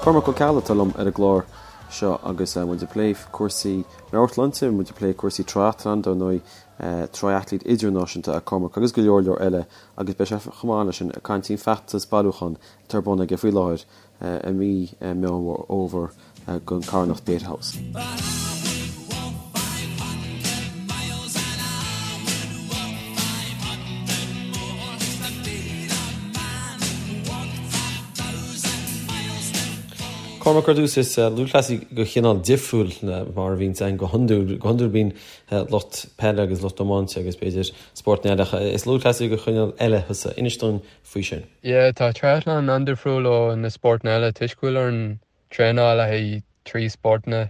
Cormac Ó Ceallaigh atá liom ar an gclár seo agus muid ag plé cúrsaí meabhairshláinte, muid ag plé cúrsaí triathlon, dar ndóigh triathlete idirnáisiúnta é Cormac agus go leor leor eile agus beidh sé chomh maith leis sin ag caint faoin feachtas bailiúcháin atá ar bun aige faoi láthair i mí Meán Fhómhair don carthanacht Pieta House. Cormac, ar dtús, is lúthchleasaí de chineál difriúil mar a bhíonns ann go hiondúil. Go hiondúil bíonn lucht peile agus lucht iomáinte agus b'fhéidir spórtanna eile ach is lúthchleasaí de chineál eile thusa. Inis dúinn faoi sin. Yeah, tá triathlon an-difriúil ó na spórtanna eile toisc go bhfuil orainn traenáil le haghaidh 3 spórtanna,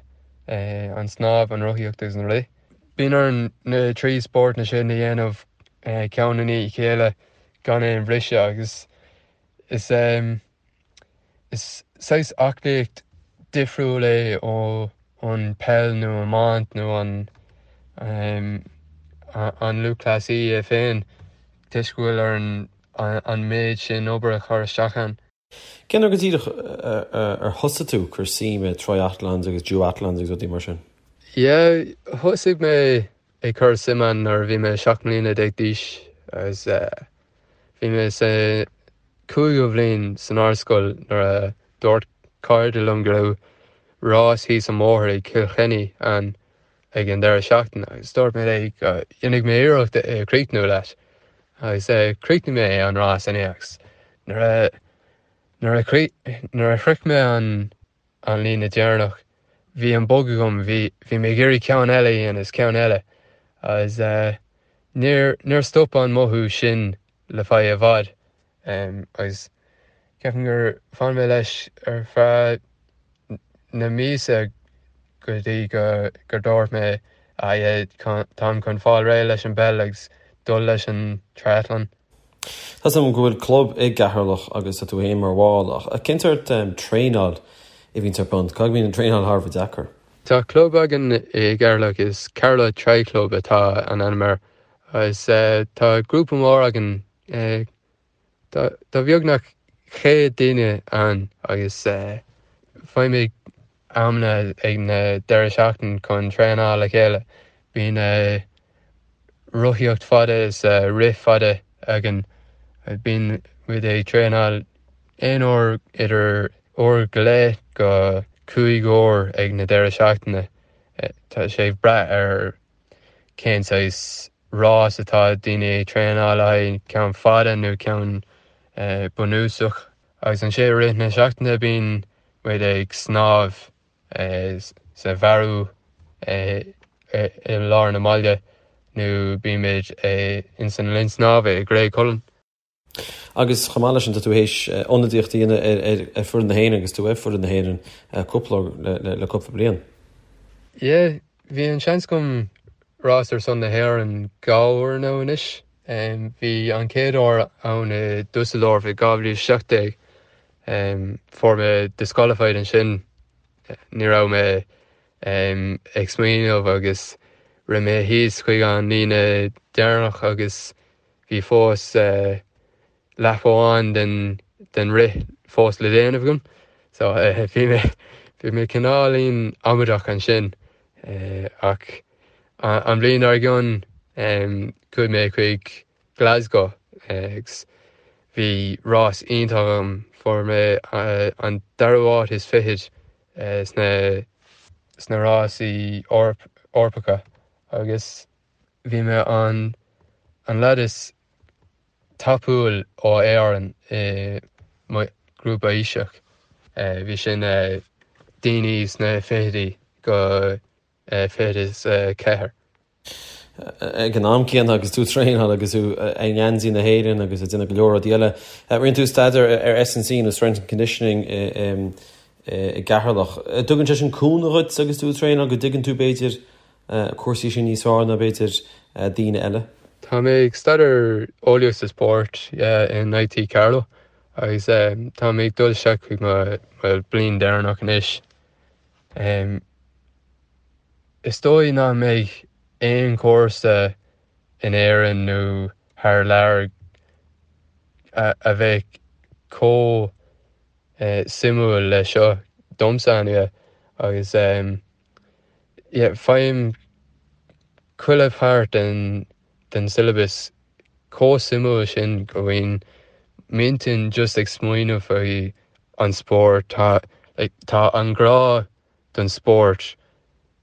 an snámh, an rothaíocht agus an rith. Bíonn orainn na 3 spórtanna sin a dhéanamh ceann i ndiaidh a chéile gan aon bhriseadh agus is is saghas aclaíocht difriúil é ó an peil nó iomáint nó an an lúthchleasaí é féin toisc go bhfuil orainn an méid sin obair a chur isteach ann. Cén uair go díreach ar thosaigh tú ag cur suim i triathlons agus duathlons agus rudaí mar sin? Yeah, thosaigh mé ag cur suim ann nuair a bhí mé 17 mbliana d'aois agus bhí mé sa cúigiú bhliain san ardscoil nuair a dúirt cairde liom go raibh rás thíos an bóthar ag Cill Chainnigh ann ag an deireadh seachtaine agus dúirt mé léi go ndéanfaidh mé iarracht é a chríochnú leat agus chríochnaigh mé an rás inné agus nuair a nuair a nuair a shroich mé an an líne deireanach bhí an bug agam bhí bhí mé ag iarraidh ceann eile a dhéanamh is ceann eile agus níor níor stop an mothú sin le feadh i bhfad agus ceapaim gur fhan mé leis ar feadh na míosa go dtí go gur dúirt mé ah yeah táim chun fáil réidh leis an bpeil agus dul leis an triathlon. Tá 's agam go bhfuil club i gCeatharlach agus tá tú féin mar bhall ach cén sórt traenáil a bhíonns ar bun? Caithfidh go mbíonn an traenáil thar a bheith deacair? Tá club againn i gCeatharlach, is Carlow Tri Club atá an ainm air Agus tá grúpa mór againn, tá beagnach 100 duine ann agus faighimid amanna ag na deireadh seachtain chun traenáil le chéile. Bíonn rothaíocht fada is rith fada againn. Bíonn muid ag traenáil aon uair idir uair go leith go 5 uair ag na deireadh seachtaine. Tá sé ag brath ar cén saghas rás atá daoine ag traenáil le haghaidh, ceann fada nó ceann bunúsach. Agus ansin i rith na seachtaine bíonn muid ag snámh sa Bhearú i lár na mbaile nó bíonn muid ins an linn snámha i Graiguecullen. Agus chomh maith leis sin, tá tú théis ionadaíocht a dhéanamh ar foireann na hÉireann agus tú ar foireann na hÉireann cúpla le cúpla bliain. Yeah, bhí an seans agam rás ar son na hÉireann dhá uair nó anois. Bhí an chéad uair ann i Dusseldorf i 2017. Fuair mé disqualified ansin. Ní raibh mé ag smaoineamh agus rith mé thíos chuig an líne deireanach agus Bhí fós lap amháin den den rith fós le déanamh agam so bhí mé bhí mé cineáilín amaideach ansin ach an bhliain dár gcionn chuaigh mé chuig Glasgow agus bhí rás iontach agam fuair mé an dara háit is fichead sna sna rásaí Eorpacha agus Bhí mé an an leaid is tapúil ó Éirinn i mo ghrúpa aoiseach. Bhí sin daoine sna fichidí go 24. Ag an am céanna agus tú ag traenáil agus tú i ngeansaí na hÉireann agus ag déanamh go leor rudaí eile, rinne tú staidéar ar S&C nó Strength and Conditioning i gCeatharlach. Tugann sé sin cúnamh dhuit agus tú ag traenáil go dtuigeann tú b'fhéidir cúrsaí sin níos fearr ná b'fhéidir daoine eile. Tá mé ag staidéar eolaíocht sa spórt in IT Carlow agus tá mé ag dul isteach chuig mo bliain deireanach anois. Is dóigh nach mbeidh aon chúrsa in Éirinn nó thar lear a bheidh chomh suimiúil le seo. domsa anyway agus yeah faighim chuile pháirt den den syllabus chomh suimiúil sin go mbíonn m'intinn just ag smaoineamh faoi an spórt tá like tá an grá don spórt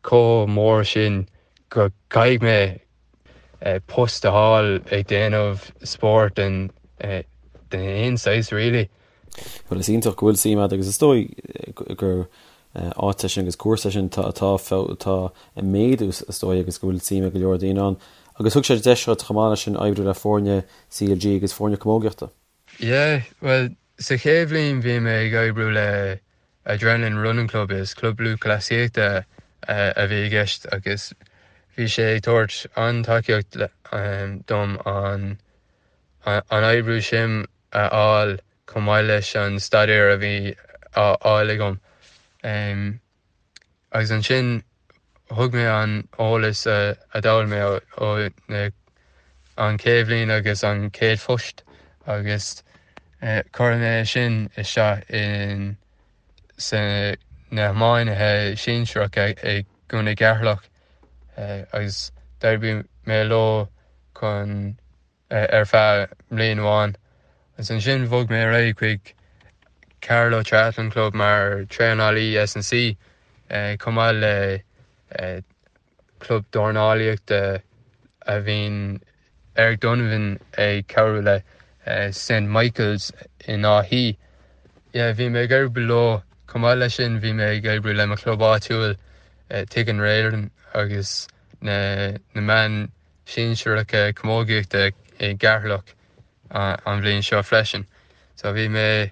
chomh mór sin go gcaithfidh mé post a fháil ag déanamh spóirt den den aon saghas really. Bhuel is iontach go bhfuil suim agat agus is dóigh gur áit é sin agus cúrsa é sin atá atá ag méadú is dóigh agus go bhfuil suim ag go leor daoine ann. Agus thug sé deis duit chomh maith leis sin oibriú le foirne CLG agus foirne camógaíochta. Yeah, bhuel sa chéad bhliain bhí mé ag oibriú le Adrenaline Running Club, is club lúthchleasaíochta a bhí i gceist agus bhí sé ag tabhairt an-tacaíocht dom an an oibriú sin a fháil chomh maith leis an staidéar a bhí á fháil agam. Agus ansin thug mé an eolas a d'fhoghlaim mé ó an chéad bhliain agus an chéad phost agus chuir mé sin isteach in sa na hiománaithe sinsearacha i gContae Cheatharlach agus d'oibrigh mé leo chun ar feadh mbliain amháin agus ansin bhog mé ar aghaidh chuig Carlow Triathlon Club mar traenálaí S&C chomh maith le club dornálaíochta a bhíonn Eric Donovan ag cabhrú le St Michael's in Áth Í. Yeah, bhí mé ag oibriú leo chomh maith leis sin bhí mé ag oibriú le mo chlub áitiúil Tigh an Raoláin agus na na meán sinsearacha camógaíochta i gCeatharlach an bhliain seo freisin. So bhí mé,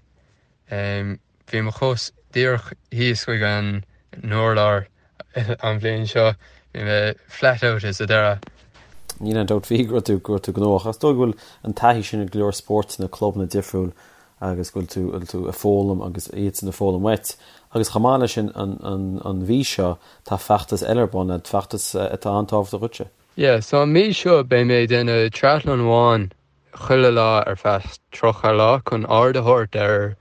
bhí mo chos díreach thíos chuig an n-urlár an bhliain seo, bhí mé flat out sa deireadh. Níl aon dabht faoi go raibh tú, go raibh tú gnóthach. Is dóigh go bhfuil an taithí sin ag go leor spórtanna, clubanna difriúil agus go bhfuil tú, bhfuil tú ag foghlaim agus iadsan ag foghlaim uait. Agus chomh maith leis sin an, an, an mhí seo tá feachtas eile ar bun, feachtas atá an-tábhachtach dhuitse. Yeah, so an mhí seo beidh mé ag déanamh triathlon amháin chuile lá ar feadh 30 lá chun aird a thabhairt ar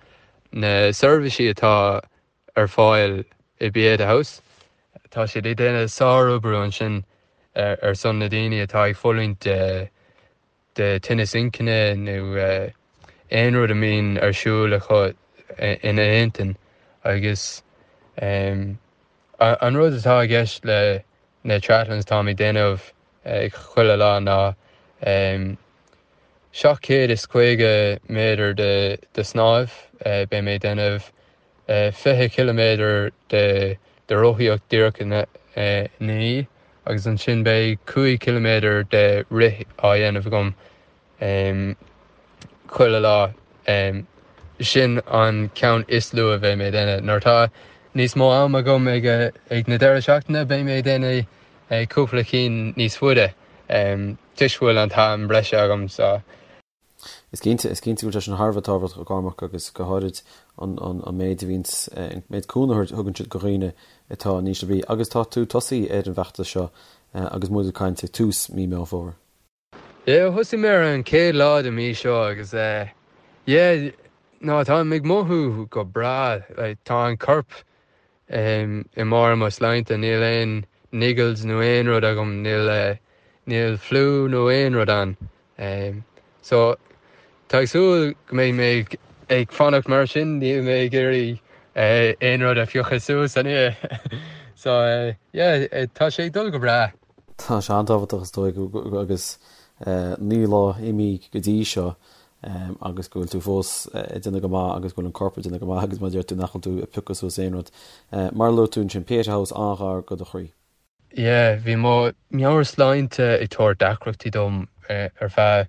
na seirbhísí atá ar fáil i Pieta House. Tá siad ag déanamh sárobair ansin ar son na daoine atá ag fulaingt de de tinneas inchinne nó aon rud a mbíonn ar siúl acu ina n-intinn agus An rud atá i gceist le na triathlons atáim ag déanamh chuile lá ná 750 méadar de snámh, beidh mé ag déanamh 20 ciliméadar de rothaíocht díreach ina ndiaidh agus ansin beidh 5 ciliméadar de rith á dhéanamh agam. chuile lá. Sin an ceann is lú a bheidh mé ag déanamh. Nuair atá níos mó am agam ag ag na deireadh seachtaine beidh mé ag déanamh cúpla cinn níos faide toisc go bhfuil an t-am breise agam so. Is cinnte, is cinnte go bhfuil sé sin thar a bheith tábhachtach a Chormac agus go háirid an an méid a bhíonns, an méid cúnamh a thugann siad do dhaoine atá in ísle brí. Agus tá tú tosaithe ar an bhfeachtas seo agus muid ag caint ag tús mí Meán Fómhair. Yeah, thosaigh mé ar an chéad lá de mí seo agus eh yeah, no táim ag mothú go breá, like tá an corp em i mbarr mo sláinte, níl aon niggles nó aon rud agam, níl eh níl fliú nó aon rud ann. Em so tá ag súil go mbeidh mé ag ag fanacht mar sin, níl mé ag iarraidh eh aon rud a phiocadh suas anyway. So eh yeah, tá sé ag dul go breá. Tá sé an-tábhachtach is dóigh agus 9 lá imithe go dtí seo agus go bhfuil tú fós ag déanamh go maith agus go bhfuil an corp ag déanamh go maith agus mar a deir tú nach bhfuil tú ag piocadh suas aon rud. Mar a luaigh tú ansin, Pieta House an-ghar do do chroí. Yeah, bhí mo mheabhairshláinte ag tabhairt deacrachtaí dom ar feadh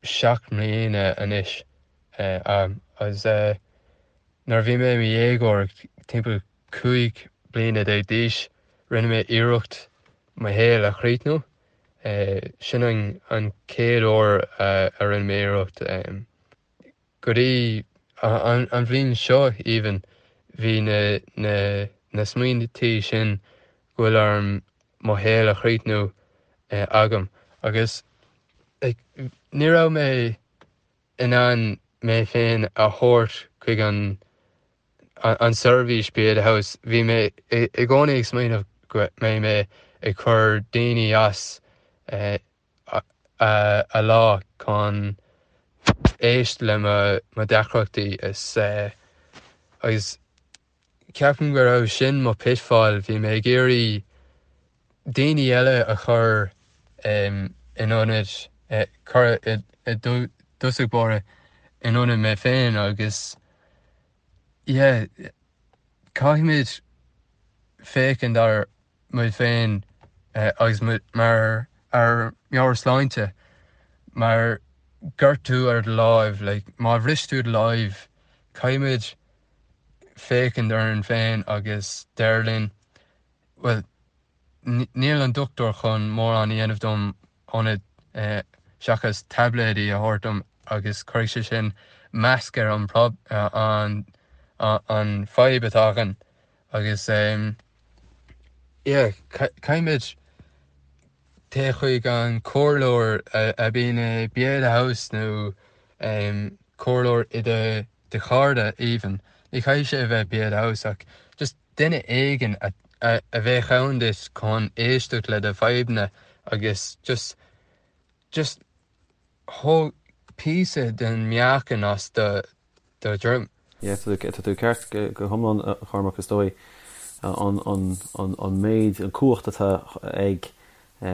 7 mbliana anois agus nuair a bhí mé i mo dhéagóir timpeall 15 bliana d'aois, rinne mé iarracht mo shaol a chríochnú. Sin an chéad uair a rinne mé iarracht. Go dtí an bhliain seo, even, bhí na smaointí sin go bhfuil orm mo shaol a chríochnú agam. Agus ní raibh mé in ann mé féin a thabhairt chuig an. An seirbhís Pieta House, bhí mé i gcónaí ag smaoineamh go mbeidh mé ag cur daoine as a lá chun éist le mo deacrachtaí is agus ceapaim go raibh sin mo pitfall, bhí mé ag iarraidh daoine eile a chur in ionad, cur i dtosach báire in ionad mé féin agus yeah caithfimid féachaint ar muid féin agus mar ár meabhairshláinte mar gortú ar do láimh, like má bhris tú do láimh caithfimid féachaint orainn féin agus deir linn bhuel níl an dochtúir chun mórán a dhéanamh dom ionad seachas taibléidí a thabhairt dom agus cuirfidh sé sin masc ar an an an fadhb atá againn agus yeah caithfimid téigh chuig an comhairleoir a bhíonn i Pieta House nó comhairleoir i do do chairde even ní chaithfidh sé a bheith Pieta House ach just duine éigin a a bheadh ann duit chun éisteacht le do fadhbanna agus just just thóg píosa den meáchan as do do dhroim. Yeah, tá tú ceart go hiomlán a Chormac, is dóigh an an an an méid, an cumhacht atá ag a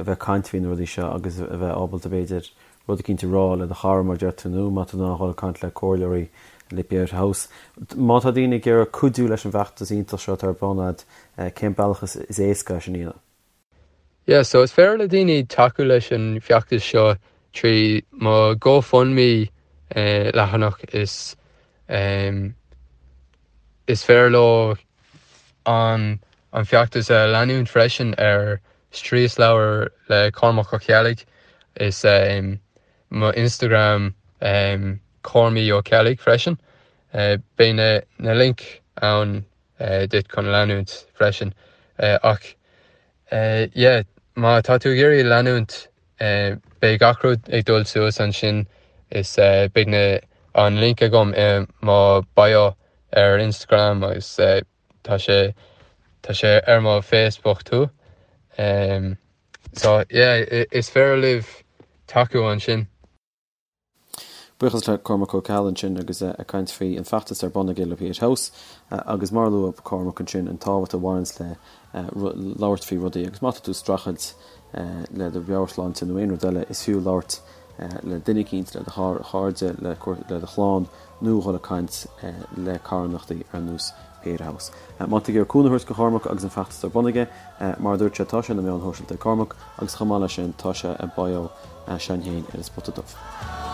bheith ag caint faoi na rudaí seo agus a bheith ábalta b'fhéidir rud eicínt a rá le do chara mar a deir tú nó má tá tú in ann a dhul ag caint le comhairleoirí le Pieta House. Má tá daoine ag iarraidh cuidiú leis an bhfeachtas iontach seo atá ar bun agat, cén bealach is éasca é sin a dhéanamh? Yeah, so is féidir le daoine tacú leis an bhfeachtas seo trí mo GoFundMe leathanach is is féidir leo an an feachtas a leanúint freisin ar Striaslabhar le Cormac Ó Ceallaigh. Is mo Instagram Cormaí Ó Ceallaigh freisin. Beidh na na link ann duit chun leanúint freisin. Ach yeah, má tá tú ag iarraidh leanúint beidh gach rud ag dul suas ansin is beidh na an link agam i mo bio ar Instagram agus tá sé tá sé ar mo Facebook too. So yeah, is féidir libh tacú ansin. Buíochas le Cormac Ó Ceallaigh ansin agus é ag caint faoi an feachtas ar bun aige le Pieta House agus mar a luaigh Cormac ansin an tábhacht a bhaineanns le labhairt faoi rudaí agus má tá tú ag streachailt le do mheabhairshláinte nó aon rud eile is fiú labhairt le duine eicínt, le do chairde, le do chlann nó dhul ag caint le carthanachtaí ar nós Pieta House. Má tá tú ag iarraidh cúnamh a thabhairt do Chormac agus an feachtas ar bun aige, mar a dúirt sé, tá sé ar na meáin shóisialta ag Cormac agus chomh maith leis sin tá sé i bio s'againn féin ar An Spota Dubh.